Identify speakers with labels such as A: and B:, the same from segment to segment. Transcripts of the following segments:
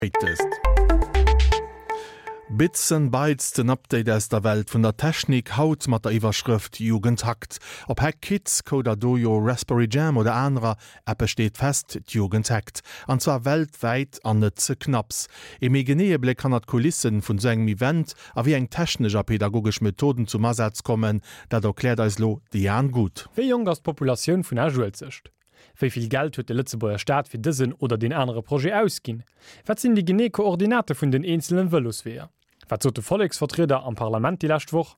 A: Latest. Bits and Bytes, den Update aus der Welt vun der Technik, haut mat der Iwwerschrëft Jugend hackt. Ob Hack Kids, Coder Dojo, Raspberry Jam oder anerer, eppes steet fest, d'Jugend hackt. An zwar weltwäit an net ze knapps. Ee méi geneeë Bléck hannert d'Kulissen vun sou engem Event a wéi eng technesch a pedagogesch Methoden zum Asaz kommen, dat erkläert eis lo de Jan Guth.
B: Wéi jonk ass d'Populatioun vun Esch-Uelzecht? Wéi vill Geld huet de Lëtzebuerger Staat fir dësen oder deen anere Projet ausginn? Wat sinn déi genee Koordinate vun den eenzelen Vëlosweeër? Wat sot de Volleksvertrieder am Parlament déi lescht Woch?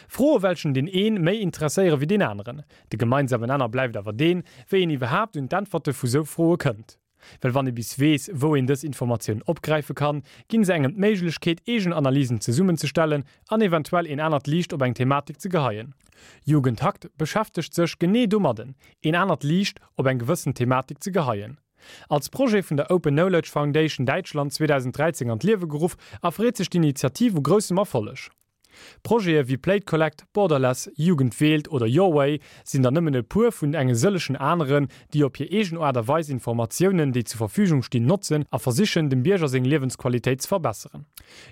B: Froe welchen deen een méi interesséiere wéi deen aneren. De gemeinsamen Nenner bleift awer deen, wéi een iwwerhaapt un d'Äntwerte vu sou Froe kënnt. Well wann ee bis weess, wou een dës Informatiounen opgräife kann, ginn se engem d'Méiglechkeet, eegen Analysen zesummenzestellen an eventuell een anert Liicht op eng Thematik ze geheien. Jugend hackt beschäftegt sech genee domadden, een anert Liicht op eng gewëssen Thematik ze geheien. Als Projet vun der Open Knowledge Foundation Däitschland 2013 an d'Liewe geruff, erfreet sech d'Initiativ u groussem Erfolleg. Projete wéi Plate Collect, Borderless, Jugend wählt oder Your Way sinn der nëmmen e puer vun enge sëllechen aneren, déi op hir eegen Aart a Weis Informatiounen, déi zur Verfügung stinn, notzen a versichen, dem Bierger seng Liewensqualitéit ze verbesseren.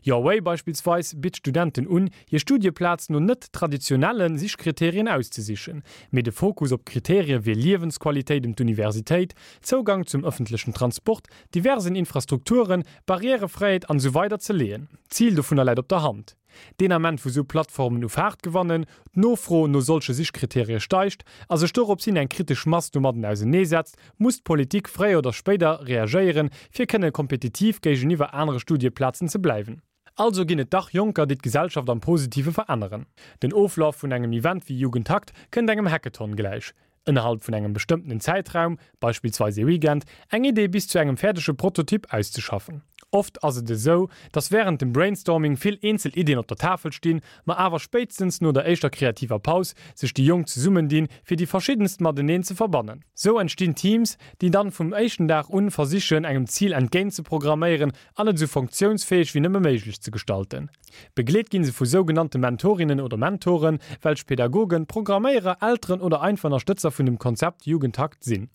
B: Your Way beispillsweis bitt Studenten un, hir Studieplaz no net traditionelle Sichkriterien auszesichen, mee de Fokus op Kriterie wéi Liewensqualitéit ëm d'Universitéit, Zougang zum ëffentlechen Transport, diversen Infrastrukturen, Barrièrefräiheet an esou weider ze leeën. D'Zil dovunner läit op der Hand. Deen Ament wou sou Plattformen u Faart gewannen, d'Nofro no solche Sichkriterie steigt a sech dorops hin eng kritesch Mass domadden auseneesetzt, muss d'Politik fréier oder spéider reagéieren, fir kënne kompetitiv géigeniwwer anere Studieplazen ze bleiwen. Also ginn et dach Jonker, déi d'Gesellschaft am Positive veränneren. Den Oflaf vun engem Event wéi Jugendhackt kënnt engem Hackathon gläich. Ënnerhalb vun engem bestëmmtenen Zäitraum, beispillsweis ee Weekend, eng Idee bis zu engem fäerdege Prototyp auszeschaffen. Oft ass et esou, dass wärend dem Brainstorming vill eenzel Iddien op der Tafel stinn, ma awer spéitstens no der éischter kreativer Paus sech déi Jonk zesummendinn, fir déi verschiddenst mateneen ze verbannen. Sou entstinn Teams, déi dann vum éischten Dag un versichen, engem Zil entgéint ze programméieren an et esou funktiounsfäeg wéi nëmme méiglech ze gestalten. Begleet ginn se vu sougenannte Mentorinnen oder Mentoren, welch Pädagogen, Programméierer, Elteren oder einfach Ënnerstëtzer vun dem Konzept Jugendhackt sinn.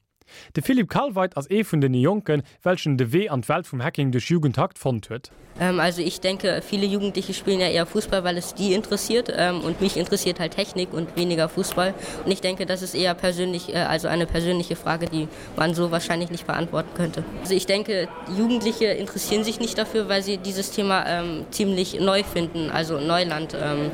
B: De Philippe Kalweit ass ee vun den Jonken, welchen de Wee an d'Welt vum Hacking duerch Jugendhackt fonnt huet.
C: Also ich denke, viele Jugendliche spielen ja eher Fußball, weil es die interessiert und mich interessiert halt Technik und weniger Fußball. Und ich denke, das ist eher persönlich, also eine persönliche Frage, die man so wahrscheinlich nicht beantworten könnte. Also ich denke, Jugendliche interessieren sich nicht dafür, weil sie dieses Thema ähm, ziemlich neu finden, also Neuland. Ähm,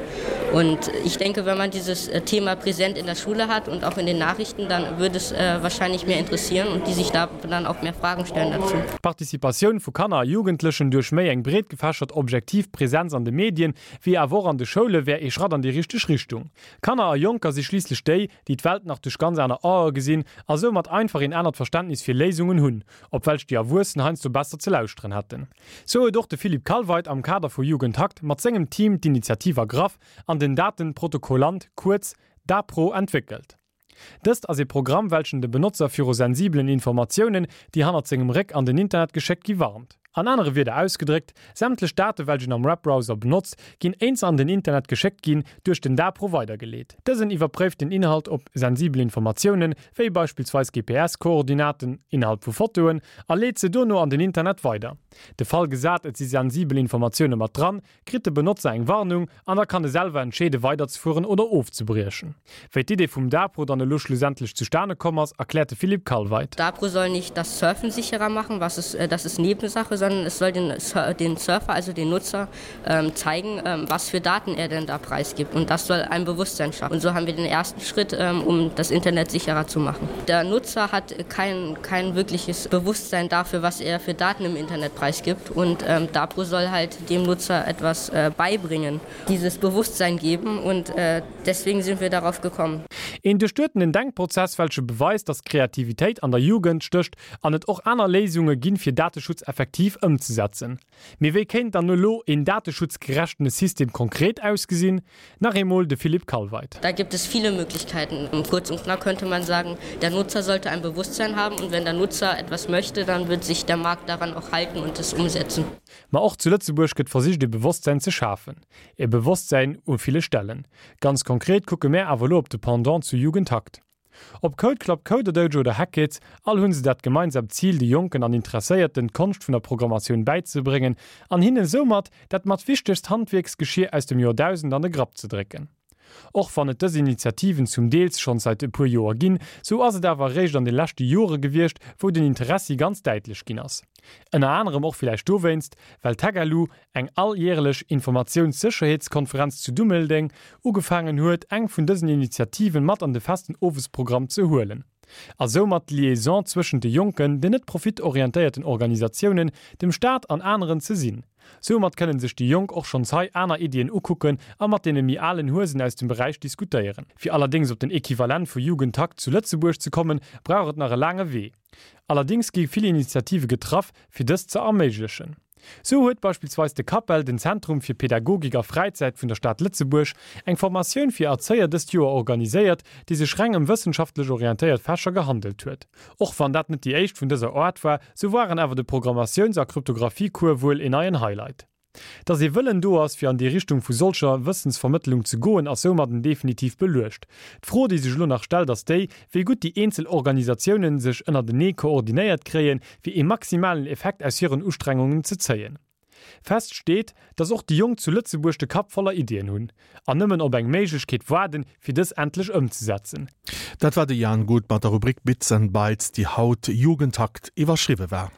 C: und ich denke, wenn man dieses äh, Thema präsent in der Schule hat und auch in den Nachrichten, dann würde es äh, wahrscheinlich mehr interessieren und die sich da dann auch mehr Fragen stellen dazu.
B: D'Participatioun vu Kanner a Jugendlechen duerch méi eng breet gefächert objektiv Präsenz an de Medien, wéi awer och an de Schoule wär ee Schratt an déi richteg Richtung. Kanner a Jonker si schliisslech déi, déi d'Welt nach duerch ganz aner Ae gesinn a soumat einfach een anert Verständnis fir Léisungen hunn, op welch déi Erwuessen heiansdo besser ze lauschteren hätten. Sou huet och de Philippe Kalweit am Kader vu Jugendhackt mat sengem Team d'Initiativ ergraff an den Datenprotokollant, kuerz DaPro, entwéckelt. Dëst ass ee Programm, welchen de Benotzer viru sensibelen Informatiounen, déi hannert sengem Réck an den Internet geschéckt gi warnt. An anere Wierder ausgedréckt, sämtlech Date welch een am Webbrowser benotzt, ginn éint se an den Internet geschéckt ginn, duerch den Dapro weidergeleet. Dësen iwwerpréift den Inhalt op sensibel Informatiounen, wéi beispillsweis GPS-Koordinaten innerhalb vu Fotoen, a leet se dono an den Internet weider. De Fall gesat et si sensibel Informatioune mat dran, kritt de Benotzer eng Warnung an da kann e selwer entscheede weiderzefueren oder ofzebriechen. Wéi d'Idee vum Dapro dann elo schlussendlech zustane komm ass, erkläert de Philippe Kalweit.
C: Dapro soll nicht das Surfen sicherer machen, was ist, das ist Nebensache, sondern es soll den, den Surfer, also den Nutzer, ähm, zeigen, ähm, was für Daten er denn da preisgibt. Und das soll ein Bewusstsein schaffen. Und so haben wir den ersten Schritt, ähm, um das Internet sicherer zu machen. Der Nutzer hat kein, kein wirkliches Bewusstsein dafür, was er für Daten im Internet preisgibt. Und ähm, Dapro soll halt dem Nutzer etwas äh, beibringen, dieses Bewusstsein geben und äh, deswegen sind wir darauf gekommen.
B: Een duerchduetenen Denkprozess, welche beweist, dass Kreativitéit an der Jugend stécht an et och aner Léisunge ginn, fir Dateschutz effektiv ëmzesetzen. Mee wéi kéint dann elo een dateschutzgerechtene System konkret ausgesinn? Nach eemol de Philippe Kalweit.
C: Da gibt es viele Möglichkeiten. Kurz und knapp könnte man sagen, der Nutzer sollte ein Bewusstsein haben und wenn der Nutzer etwas möchte, dann wird sich der Markt daran auch halten und es umsetzen.
B: Ma och zu Lëtzebuerg gëtt versicht e Bewosstsäin ze schafen. E Bewosstsäin u ville Stellen. Ganz konkret kucke mär awer elo op de Pendant zu Jugendhackt. Ob Code Club, CoderDojo oder Hackkids, all hunn se dat gemeinsamt Zil, de Jonken an Interesséierten d'Konscht vun der Programmatioun bäizebréngen an hinnen soumat dat mat wichtegst Handwierksgeschier aus dem Joerdausend an de Grapp ze drécken. Och wann et dës Initiativen zum Deels schonns seit e puer Joer ginn, sou ass et awer eréischt an de leschte Jore gewiescht, wou den Interessi ganz däitlech ginn ass. Ënner anerem och villäicht dowéinst, well d'Hackalu, eng alljärelech Informatiounssécherheetskonferenz zu Dummeldeng, ugefaangen huet, eng vun dësen Initiativen mat an de festen Owesprogramm ze huelen a soumat d'Liaison zwëschent de Jonken, den net profitorientéierten Organisatiounen, dem Staat an aneren ze sinn. Soumat kënnen sech déi Jonk och schonns hei aner Iddien ukucken a mat deene méi alen Huesen aus dem Beräich diskutéieren. Fir allerdéngs op den Equivalent vu Jugendhackt zu Lëtzebuerg ze kommen, brauch et nach e laange Wee. Allerdéngs gi vill Initiative getraff, fir dëst ze erméiglechen. Sou huet beispillsweis de CAPEL, den Zentrum fir Pädagogik a Fräizäit vun der Stad Lëtzebuerg, eng Formatioun fir Erzéier dëst Joer organiséiert, déi sech reng ëm wëssenschaftlech orientéiert Fächer gehandelt huet. Och wann dat net déi éischt vun dëser Aart war, sou waren awer de Programmatiouns a Kryptographie-Cours wuel een neien Highlight. Dass ee Wëllen do ass, fir an déi Richtung vu solcher Wëssensvermëttelung ze goen, ass soumadden definitiv beluecht. D'Fro, déi sech elo nach stellt, ass déi, wéi gutt déi eenzel Organisatiounen sech ënnertenee koordinéiert kréien, fir ee maximalen Effekt aus hiren Ustrengungen ze zéien. Fest steet, dass och déi Jonk zu Lëtzebuerg de Kapp voller Iddien hunn, an nëmmen op eng Méiglechkeet waarden, fir dës endlech ëmzesetzen.
A: Dat war de Jan Guth mat der Rubrik Bits and Bytes, déi haut Jugendhackt iwwerschriwwe war.